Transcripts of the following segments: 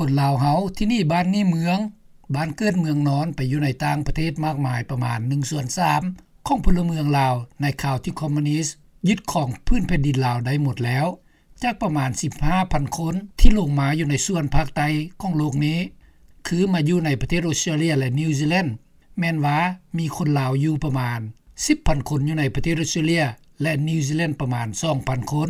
ຄົນລາວເຮົາທີ່ໜີບ້ານໜີເມືອງ, ບ້ານເກີດເມືອງນອນ ໄປຢູ່ໃນຕ່າງປະເທດມາກມາຍ ປະມານໜຶ່ງສ່ວນສາມຂອງພົນລະເມືອງລາວ ໃນຄາວທີ່ຄອມມູນິດຍຶດຄອງພື້ນແຜ່ນດິນລາວໄດ້ໝົດແລ້ວ. ຈາກປະມານສິບຫ້າພັນຄົນທີ່ລົງມາຢູ່ໃນສ່ວນພາກໃຕ້ຂອງໂລກນີ້ ຄືມາຢູ່ໃນປະເທດອົດສະຕຣາເລຍ ແລະ ນິວຊີແລນ ແມ່ນວ່າມີຄົນລາວຢູ່ປະມານສິບພັນຄົນ ຢູ່ໃນປະເທດອົດສະຕຣາເລຍ ແລະ ນິວຊີແລນ ປະມານສອງພັນຄົນ.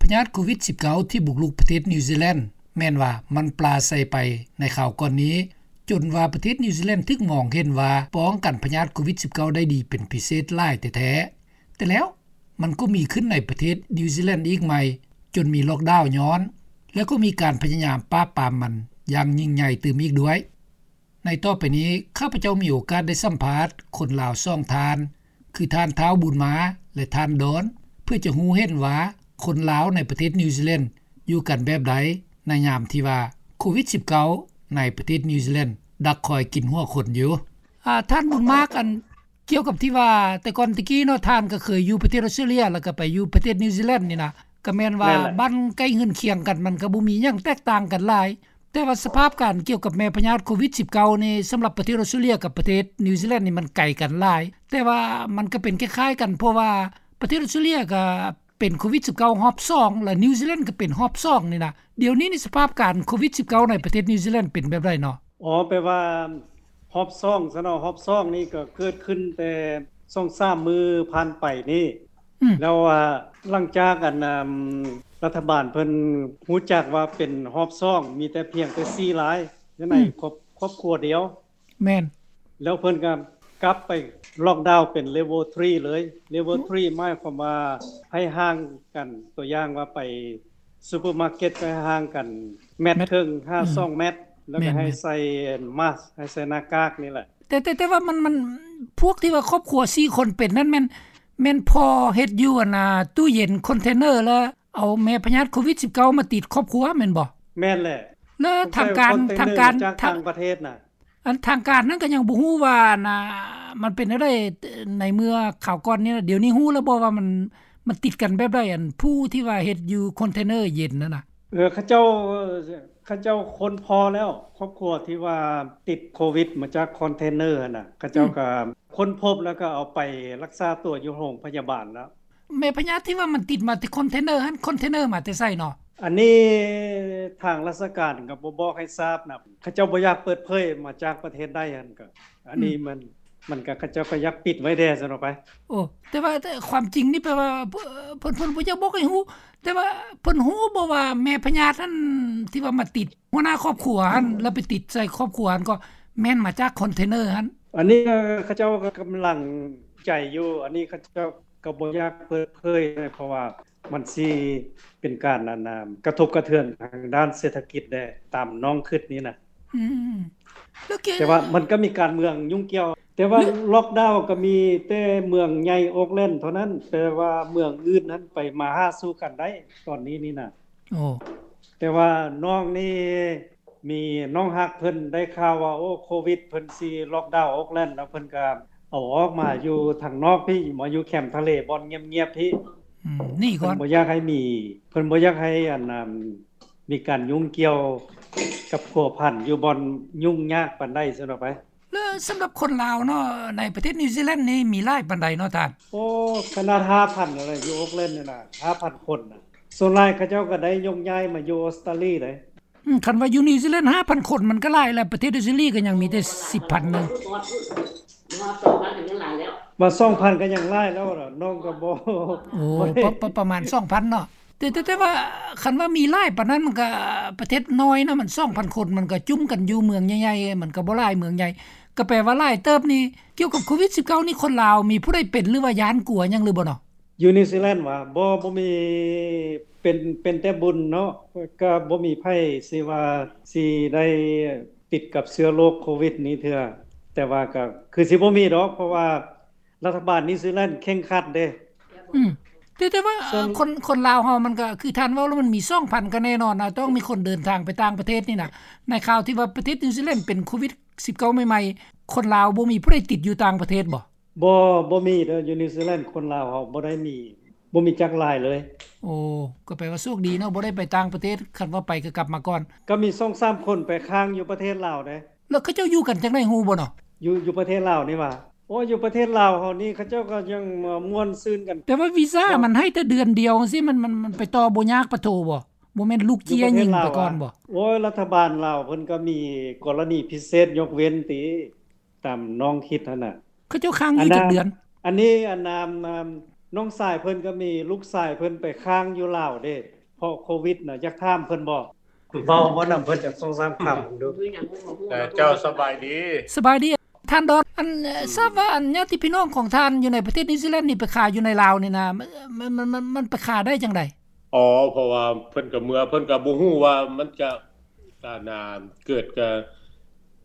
ພະຍາດໂຄວິດສິບເກົ້າ ທີ່ບຸກລຸກປະເທດນິວຊີແລນ ແມ່ນວ່າມັນປາໄສໄປໃນຄາວກ່ອນນີ້ ຈົນວ່າປະເທດນິວຊີແລນຖືກມອງເຫັນວ່າປ້ອງກັນພະຍາດໂຄວິດສິບເກົ້າ ໄດ້ດີເປັນພິເສດຫຼາຍແທ້ໆ. ແຕ່ແລ້ວມັນກໍມີຂຶ້ນໃນປະເທດນິວຊີແລນອີກໃໝ່ ຈົນມີລັອກດາວຍ້ອນ ແລະ ກໍມີການພະຍາຍາມປາບປາມມັນຢ່າງຍິ່ງໃຫຍ່ຕື່ມອີກດ້ວຍ. ໃນຕໍ່ໄປນີ້ ຂ້າພະເຈົ້າມີໂອກາດໄດ້ສຳພາດຄົນລາວສອງທ່ານ ຄືທ່ານທ້າວບຸນມາ ແລະ ທ່ານດອນ ເພື່ອຈະຮູ້ເຫັນວ່າຄົນລາວໃນປະເທດນິວຊີແລນຢູ່ກັນແບບໃດ ໃນຍາມທີ່ວ່າໂຄວິດສິບເກົ້າ ໃນປະເທດນິວຊີແລນດັກຄອຍກິນຫົວຄົນຢູ່. ອາ ທ່ານບຸນມາ ອັນ ກ່ຽວກັບທີ່ວ່າແຕ່ກ່ອນແຕ່ກີ້ເນາະ ທ່ານກໍເຄີຍຢູ່ປະເທດອົດສະຕຣາເລຍ ແລ້ວກໍໄປຢູ່ປະເທດນິວຊີແລນນີ້ນະ ກໍແມ່ນວ່າ ແມ່ນແຫຼະ ບ້ານໃກ້ເຮືອນຄຽງກັນ ມັນກໍບໍ່ມີຫຍັງແຕກຕ່າງກັນຫຼາຍ. ແຕ່ວ່າສະພາບການກ່ຽວກັບແມ່ພະຍາດໂຄວິດສິບເກົ້ານີ້ ສຳລັບປະເທດອົດສະຕຣາເລຍກັບປະເທດນິວຊີແລນນີ້ ມັນໄກກັນຫຼາຍ ແຕ່ວ່າມັນກໍເປັນຄ້າຍໆກັນ ເພາະວ່າປະເທດອົດສະຕຣາເລຍກໍເປັນໂຄວິດສິບເກົ້າຮອບສອງ ແລະ ນິວຊີແລນກໍເປັນຮອບສອງນີ້ນະ. ດຽວນີ້ນີ້ສະພາບການໂຄວິດສິບເກົ້າໃນປະເທດນິວຊີແລນເປັນແບບໃດເນາະ? ອໍ ແປວ່າຮອບສອງຊະເນາະ ຮອບສອງນີ້ກໍເກີດຂຶ້ນແຕ່ສອງສາມມື້ຜ່ານໄປນີ້ ອືມ ແລ້ວວ່າຫຼັງຈາກອັນ ອາ ລັດຖະບານເພິ່ນຮູ້ຈັກວ່າເປັນຮອບສອງ ມີແຕ່ພຽງແຕ່ສີ່ລາຍ ຢູ່ໃນ ອືມ ຄອບ ຄອບຄົວດຽວ ແມ່ນ ແລ້ວເພິ່ນກໍກັບໄປລັອກດາວເປັນເລເວລທຣີເລີຍ. ເລເວລທຣີ ອືມ ໝາຍຄວາມວ່າໃຫ້ຫ່າງກັນ ຕົວຢ່າງວ່າໄປ ຊຸບເປີມາເກັດກໍໃຫ້ຫ່າງກັນແມັດ ແມັດ ເຄິ່ງ ຫາ ອືມ ສອງແມັດ ແລ້ວກໍ ແມ່ນໆ ໃຫ້ໃສ່ມາສ ໃຫ້ໃສ່ໜ້າກາກນີ້ແຫຼະ. ແຕ່ ແຕ່ ແຕ່ວ່າມັນ ມັນ ພວກທີ່ວ່າຄອບຄົວສີ່ຄົນເປັນນັ້ນແມ່ນ ແມ່ນພໍເຮັດຢູ່ອັນນ່າ ຕູ້ເຢັນຄອນເທນເນີ ແລ້ວເອົາແມ່ພະຍາດໂຄວິດສິບເກົ້າມາຕິດຄອບຄົວແມ່ນບໍ່? ແມ່ນແຫຼະ. ແລ້ວທາງການ ທາງການ ມາຈາກຕ່າງປະເທດນະ. ອັນທາງການນັ້ນກໍຍັງບໍ່ຮູ້ວ່າ ອັນນ່າ ມັນເປັນແນວໃດ ໃນເມື່ອຄາວກ່ອນນີ້ນະ. ດຽວນີ້ຮູ້ແລ້ວບໍ່ວ່າມັນ ມັນຕິດກັນແບບໃດ ອັນຜູ້ທີ່ວ່າເຮັດຢູ່ຄອນເທນເນີເຢັນນັ້ນນະ? ເອີ ເຂົາເຈົ້າ ເຂົາເຈົ້າຄົ້ນພໍ້ແລ້ວ ຄອບຄົວທີ່ວ່າຕິດໂຄວິດມາຈາກຄອນເທນເນີຫັ້ນນະ ເຂົາເຈົ້າ ອືມ ກໍຄົ້ນພົບ ແລ້ວກໍເອົາໄປລັກສາຕົວຢູ່ໂຮງພະຍາບານແລ້ວ. ແມ່ພະຍາດທີ່ວ່າມັນຕິດມາແຕ່ຄອນເທນເນີຫັ້ນ ຄອນເທນເນີມາແຕ່ໃສເນາະ? ອັນນີ້ທາງລາຊະການກໍບໍ່ບອກໃຫ້ຊາບນຳ ເຂົາເຈົ້າບໍ່ຢາກເປີດເຜີຍມາຈາກປະເທດໃດຫັ້ນ ກໍ ອັນນີ້ ອືມ ມັນ ມັນກໍ ເຂົາເຈົ້າກໍຢາກປິດໄວ້ແດ່ຊັ້ນອອກໄປ. ໂອ້ ແຕ່ວ່າ ແຕ່ຄວາມຈິງນີ້ແປວ່າ ເພິ່ນ ເພິ່ນ ເພິ່ນບໍ່ຢາກບອກໃຫ້ຮູ້ ແຕ່ວ່າເພິ່ນຮູ້ບໍ່ວ່າແມ່ພະຍາດຫັ້ນທີ່ວ່າມາຕິດ ຫົວໜ້າຄອບຄົວຫັ້ນ ແລ້ວໄປຕິດໃສ່ຄອບຄົວຫັ້ນ ກໍແມ່ນມາຈາກຄອນເທນເນີຫັ້ນ? ອັນນີ້ເຂົາເຈົ້າກໍກຳລັງໃຈຢູ່ ອັນນີ້ເຂົາເຈົ້າກໍບໍ່ຢາກເປີດເຜີຍ ເພາະວ່າມັນຊິເປັນການ ອັນນ່າ ກະທົບກະເທືອນທາງດ້ານເສດຖະກິດແດ່ ຕາມນ້ອງຄິດນີ້ນະ. ອືມ ແລ້ວເກ ແຕ່ວ່າມັນກໍມີການເມືອງຫຍຸ້ງກ່ຽວ ແຕ່ວ່າ ແລ້ວ ລັອກດາວກໍມີແຕ່ເມືອງໃຫຍ່ໂອກແລນເທົ່ານັ້ນ ແຕ່ວ່າເມືອງອື່ນນັ້ນໄປມາຫາສູ່ກັນໄດ້ຕອນນີ້ນີ້ນະ. ໂອ້ ແຕ່ວ່ານ້ອງນີ້ ມີນ້ອງຮັກເພິ່ນໄດ້ຂ່າວວ່າ ໂອ້ ໂຄວິດ ເພິ່ນຊິລັອກດາວໂອກແລນ ແລ້ວເພິ່ນກໍເອົາອອກມາຢູ່ທາງນອກພີ້ ມາຢູ່ແຄມທະເລບ່ອນງຽບໆພີ້. ອືມ ໜີກ່ອນ ເພິ່ນບໍ່ຢາກໃຫ້ມີ ເພິ່ນບໍ່ຢາກໃຫ້ ອັນ ອັນ ມີການຫຍຸ້ງກ່ຽວກັບພົວພັນຢູ່ບ່ອນຫຍຸ້ງຍາກປານໃດຊັ້ນອອກໄປ. ແລ້ວສຳລັບຄົນລາວເນາະ ໃນປະເທດນິວຊີແລນນີ້ມີຫຼາຍປານໃດເນາະທ່ານ? ໂອ້ ຂະໜາດຫ້າພັນແລ້ວ ຢູ່ໂອກແລນນີ້ນະ ຫ້າພັນຄົນນະ ສ່ວນຫຼາຍເຂົາເຈົ້າກໍໄດ້ຍົກຍ້າຍມາຢູ່ອົດສະຕຣາລີເດ້. ອືມ ຄັນວ່າຢູ່ນິວຊີແລນຫ້າພັນຄົນມັນກໍຫຼາຍແລ້ວ ປະເທດອົດສະຕຣາລີກໍຍັງມີແຕ່ສິບພັນໜຶ່ງ ວ່າສອງພັນກໍຍັງຫຼາຍແລ້ວ ນ້ອງກໍບໍ່ ໂອ້ ບໍ່ໄດ້ ປະ ປະ ປະມານສອງພັນເນາະ. ແຕ່ ແຕ່ ແຕ່ວ່າຄັນວ່າມີຫຼາຍປານນັ້ນ ມັນກໍປະເທດນ້ອຍເນາະ ມັນສອງພັນຄົນ ມັນກໍຈຸ້ມກັນຢູ່ເມືອງໃຫຍ່ໆ ມັນກໍບໍ່ຫຼາຍເມືອງໃຫຍ່ ກໍແປວ່າຫຼາຍເຕີບນີ້. ກ່ຽວກັບໂຄວິດສິບເກົ້ານີ້ ຄົນລາວມີຜູ້ໃດເປັນ ຫຼືວ່າຢ້ານກົວຫຍັງຫຼືບໍ່ເນາະ? ຢູ່ນິວຊີແລນຫວາ? ບໍ່ ບໍ່ມີ ເປັນ ເປັນແຕ່ບຸນເນາະ ກໍບໍ່ມີໃຜຊິວ່າຊິໄດ້ຕິດກັບເຊື້ອໂລກໂຄວິດນີ້ເທື່ອ ແຕ່ວ່າກໍຄືຊິບໍ່ມີດອກ ເພາະວ່າລັດຖະບານນິວຊີແລນເຄັ່ງຄັດເດ້. ອືມ ແຕ່ ແຕ່ວ່າ ແຕ່ວ່າ ເອີ ຄົນ ຄົນລາວເຮົາມັນກໍຄືທ່ານເວົ້າແລ້ວ ມັນມີສອງພັນກໍແນ່ນອນນະ ຕ້ອງມີຄົນເດີນທາງໄປຕ່າງປະເທດນີ້ນະ. ໃນຂ່າວທີ່ວ່າປະເທດນິວຊີແລນເປັນໂຄວິດສິບເກົ້າໃໝ່ໆ ຄົນລາວບໍ່ມີຜູ້ໃດຕິດຢູ່ຕ່າງປະເທດບໍ່? ບໍ່ ບໍ່ມີເດີ ຢູ່ນິວຊີແລນຄົນລາວເຮົາບໍ່ໄດ້ມີ ບໍ່ມີຈັກລາຍເລີຍ. ໂອ້ ກໍແປວ່າໂຊກດີເນາະ ບໍ່ໄດ້ໄປຕ່າງປະເທດ, ຄັນວ່າໄປກໍກັບມາກ່ອນ. ກໍມີສອງສາມຄົນໄປຄ້າງຢູ່ປະເທດລາວເດ້. ແລ້ວເຂົາເຈົ້າຢູ່ກັນຈັ່ງໃດຮູ້ບໍ່ເນາະ? ຢູ່ ຢູ່ປະເທດລາວນີ້ຫວາ? ໂອ້ ຢູ່ປະເທດລາວເຮົານີ້ ເຂົາເຈົ້າກໍຍັງມ່ວນຊື່ນກັນ. ແຕ່ວ່າວີຊາມັນໃຫ້ແຕ່ເດືອນດຽວຈັ່ງຊີ້ ມັນ ມັນ ມັນໄປຕໍ່ບໍ່ຍາກປະໂທບໍ່? ບໍ່ແມ່ນລູກເຈ້ຍຍິງໄປກ່ອນບໍ່? ໂອ້ຍ ລັດຖະບານລາວເພິ່ນກໍມີກໍລະນີພິເສດຍົກເວັ້ນຕິ ຕາມນ້ອງຄິດຫັ້ນນະ. ເຂົາເຈົ້າຄ້າງຢູ່ຈັກເດືອນ? ອັນນີ້ ອັນ ນ້ອງຊາຍເພິ່ນກໍມີ ລູກຊາຍເພິ່ນໄປຄ້າງຢູ່ລາວເດ້ ເພາະໂຄວິດນະ. ຢາກຖາມເພິ່ນບໍ່? ເວົ້າ ເວົ້ານຳເພິ່ນຈັກສອງສາມຄຳເບິ່ງດູ. ເຈົ້າ ສະບາຍດີ. ສະບາຍດີທ່ານດອນ. ອັນ ອືມ ຊາບວ່າ ອັນ ຍາດຕິພີ່ນ້ອງຂອງທ່ານຢູ່ໃນປະເທດນິວຊີແລນນີ້ ໄປຂາຍຢູ່ໃນລາວນີ້ນະ ມັນ ມັນ ມັນ ມັນໄປຂາຍໄດ້ຈັ່ງໃດ? ອໍ ເພາະວ່າເພິ່ນກໍເມືອ ເພິ່ນກໍບໍ່ຮູ້ວ່າມັນຈະ ອັນນ່າ ເກີດກະ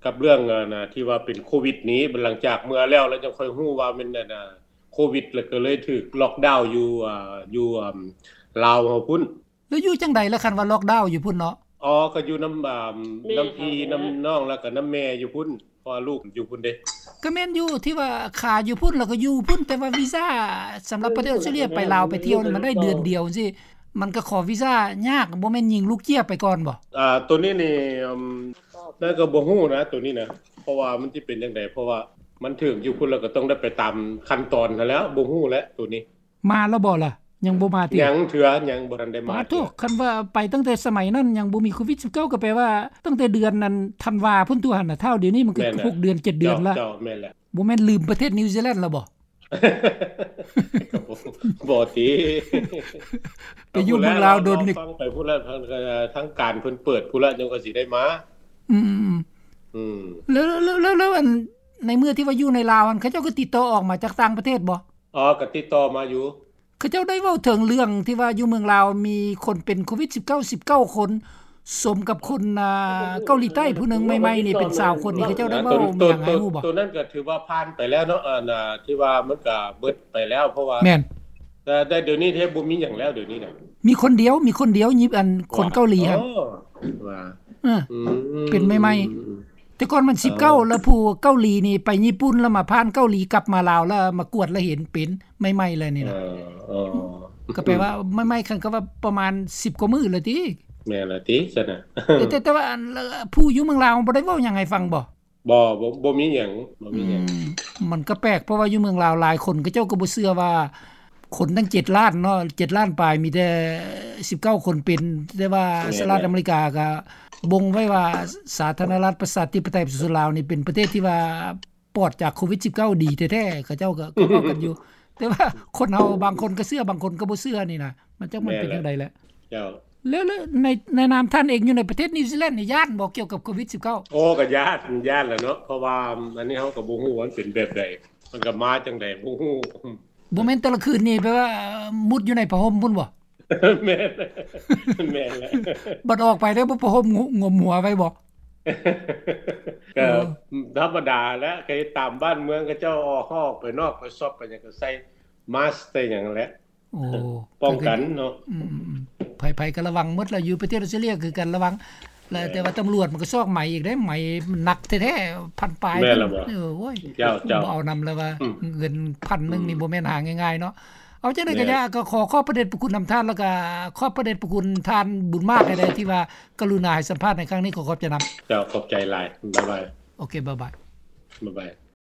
ກັບເລື່ອງ ອັນນ່າ ທີ່ວ່າເປັນໂຄວິດນີ້. ຫຼັງຈາກເມືອແລ້ວ ແລ້ວຈັ່ງຄ່ອຍຮູ້ວ່າແມ່ນ ອັນນ່າ ໂຄວິດ ແລ້ວກໍເລີຍຖືກລັອກດາວຢູ່ ອ່າ ຢູ່ ອ່າ ລາວເຮົາພຸ້ນ. ແລ້ວຢູ່ຈັ່ງໃດລະ ຄັນວ່າລັອກດາວຢູ່ພຸ້ນເນາະ? ອໍ ກໍຢູ່ນຳ ອ່າ ແມ່ ນຳພີ່ ແມ່ ນຳນ້ອງ ແລ້ວກໍນຳແມ່ຢູ່ພຸ້ນ ເພາະວ່າລູກຢູ່ພຸ້ນເດ້. ກໍແມ່ນຢູ່ ທີ່ວ່າຂາຍຢູ່ພຸ້ນ ແລ້ວກໍຢູ່ພຸ້ນ ແຕ່ວ່າວີຊາສຳລັບປະເທດອອສເຕຣເລຍ ໄປລາວໄປທ່ຽວນີ້ ມັນໄດ້ເດືອນດຽວຈັ່ງຊີ້ ມັນກໍຂໍວີຊາຍາກ. ບໍ່ແມ່ນຍິງລູກເຈ້ຍໄປກ່ອນບໍ່? ອ່າ ໂຕນີ້ນີ້ ອືມ ແລ້ວກໍບໍ່ຮູ້ນະ ໂຕນີ້ນະ ເພາະວ່າມັນຊິເປັນຈັ່ງໃດ ເພາະວ່າມັນຖືກຢູ່ພຸ້ນ ແລ້ວກໍຕ້ອງໄດ້ໄປຕາມຂັ້ນຕອນຫັ້ນແຫຼ້ວ. ບໍ່ຮູ້ແຫຼະໂຕນີ້. ມາແລ້ວບໍ່ລະ? ຍັງບໍ່ມາຕິ? ຍັງເທື່ອ ຍັງບໍ່ທັນໄດ້ມາເທື່ອ. ໂທ້ ຄັນວ່າໄປຕັ້ງແຕ່ສະໄໝນັ້ນຍັງບໍ່ມີໂຄວິດສິບເກົ້າ ກໍແປວ່າຕັ້ງແຕ່ເດືອນນັ້ນທັນວາພຸ້ນຕົວຫັ້ນນະ. ທ້າວດຽວນີ້ມັນກໍ ແມ່ນແຫຼະ ຫົກເດືອນ ເຈັດເດືອນລະ. ເຈົ້າ ເຈົ້າ ແມ່ນແຫຼະ. ບໍ່ແມ່ນລືມປະເທດນິວຊີແລນແລ້ວບໍ່? ບໍ່ຕິ ໄປຢູ່ເມືອງລາວດົນນີ້ ໄປພຸ້ນລະ ທາງການເພິ່ນເປີດພຸ້ນລະ ຈັ່ງວ່າຊິໄດ້ມາ. ອືມ ອືມ ແລ້ວ ແລ້ວ ແລ້ວ ແລ້ວ ອັນ ໃນເມື່ອທີ່ວ່າຢູ່ໃນລາວຫັ້ນ ເຂົາເຈົ້າກໍຕິດຕໍ່ອອກມາຈາກຕ່າງປະເທດບໍ່? ອໍ ກໍຕິດຕໍ່ມາຢູ່. ເຂົາເຈົ້າໄດ້ເວົ້າເຖິງເລື່ອງທີ່ວ່າຢູ່ເມືອງລາວມີຄົນເປັນໂຄວິດສິບເກົ້າ ສິບເກົ້າຄົນ ສົມກັບຄົນ ອ່າ ເກົາຫຼີໃຕ້ຜູ້ໜຶ່ງໃໝ່ໆນີ້ເປັນຊາວຄົນນີ້ ເຂົາເຈົ້າໄດ້ເວົ້າມີຫຍັງໃຫ້ຮູ້ບໍ່? ໂຕນັ້ນກໍຖືວ່າຜ່ານໄປແລ້ວເນາະ ອັນ ທີ່ວ່າມັນກໍເບິດໄປແລ້ວ ເພາະວ່າ ແມ່ນ ແຕ່ ແຕ່ດຽວນີ້ແທບບໍ່ມີຫຍັງແລ້ວ ດຽວນີ້ນະ. ມີຄົນດຽວ ມີຄົນດຽວ ຍິບ ອັນ ຄົນເກົາຫຼີຫັ້ນ. ອໍ ວ່າ ເອີ ອືມ ເປັນໃໝ່ໆ ອືມ ແຕ່ກ່ອນມັນສິບເກົ້າ ເອີ ແລ້ວຜູ້ເກົາຫຼີນີ້ໄປຍີ່ປຸ່ນ ແລ້ວມາຜ່ານເກົາຫຼີກັບມາລາວ ແລ້ວມາກວດ ແລ້ວເຫັນເປັນໃໝ່ໆເລີຍນີ້ນະ. ເອີ ເອີ ກໍແປວ່າໃໝ່ໆ ຄັນກໍວ່າປະມານສິບກວ່າມື້ແລ້ວຕິ. ແມ່ນລະຕິຊັ້ນນະ. ແຕ່ ແຕ່ ແຕ່ວ່າອັນ ຜູ້ຢູ່ເມືອງລາວບໍ່ໄດ້ເວົ້າຫຍັງໃຫ້ຟັງບໍ່? ບໍ່ ບໍ່ ບໍ່ມີຫຍັງ ບໍ່ມີຫຍັງ. ອືມ ມັນກໍແປກ ເພາະວ່າຢູ່ເມືອງລາວຫຼາຍຄົນ ເຂົາເຈົ້າກໍບໍ່ເຊື່ອວ່າ ຄົນຕັ້ງເຈັດລ້ານເນາະ ເຈັດລ້ານປາຍ ມີແຕ່ສິບເກົ້າຄົນເປັນ. ແຕ່ວ່າ ແມ່ນ ສະຫະລັດອາເມລິກາກໍບົ່ງໄວ້ວ່າ ສາທາລະນະລັດປະຊາທິປະໄຕປະຊາຊົນລາວນີ້ ເປັນປະເທດທີ່ວ່າປອດຈາກໂຄວິດສິບເກົ້າດີແທ້ໆ. ເຂົາເຈົ້າກໍ ກໍເວົ້າກັນຢູ່ ແຕ່ວ່າຄົນເຮົາບາງຄົນກໍເຊື່ອ ບາງຄົນກໍບໍ່ເຊື່ອນີ້ນະ ມັນຈັກມັນເປັນຈັ່ງໃດແຫຼະ. ເຈົ້າ ແລ້ວ ແລ້ວໃນ ໃນນາມທ່ານເອງຢູ່ໃນປະເທດນິວຊີແລນນີ້ ຢ້ານບໍ່ກ່ຽວກັບໂຄວິດສິບເກົ້າ? ໂອ້ ກໍຢ້ານ ຢ້ານແຫຼະເນາະ ເພາະວ່າອັນນີ້ເຮົາກໍບໍ່ຮູ້ວ່າມັນເປັນແບບໃດ ມັນກໍມາຈັ່ງໃດບໍ່ຮູ້. ບໍ່ແມ່ນແຕ່ລະຄືນນີ້ແປວ່າມຸດຢູ່ໃນຜ້າຫົ່ມພຸ້ນບໍ່? ແມ່ນ ແມ່ນແຫຼະ. ບັດອອກໄປແລ້ວບໍ່ຜ້າຫົ່ມງຸ້ມຫົວໄວ້ບໍ່? ກໍ ເອີ ທຳມະດາແຫຼະ ກໍເຮັດຕາມບ້ານເມືອງ ເຂົາເຈົ້າອອກ ເຮົາອອກໄປນອກໄປຊັອບໄປຫຍັງ ກໍໃສ່ມາສໃສ່ຫຍັງແຫຼະ. ໂອ້ ປ້ອງກັນເນາະ. ອືມໆໆ ໃຜໆກໍລະວັງໝົດລະ ຢູ່ປະເທດອອສເຕຣເລຍຄືກັນລະວັງ. ແລ້ວແຕ່ວ່າຕຳຫຼວດມັນກໍຊອກໄໝອີກເດ້ ໄໝມັນໜັກແທ້ໆ ພັນປາຍ. ແມ່ນລະບໍ່? ເອີ ໂອ້ຍ ເຈົ້າ ເຈົ້າ ບໍ່ເອົານຳລະວ່າ ອືມ ເງິນພັນໜຶ່ງນີ້ ອືມ ບໍ່ແມ່ນຫາງ່າຍໆເນາະ. ເອົາຈັ່ງໃດກໍຢ່າ ແມ່ນ ກໍຂໍຂອບພະເດດພະຄຸນນຳທ່ານ ແລ້ວກໍຂອບພະເດດພະຄຸນທ່ານບຸນມາກໃຫ້ໄດ້ ທີ່ວ່າກະລຸນາໃຫ້ສຳພາດໃນຄັ້ງນີ້. ຂໍຂອບໃຈນຳ. ເຈົ້າ ຂອບໃຈຫຼາຍ. ບາຍບາຍ. ໂອເຄ ບາຍບາຍ. ບາຍບາຍ.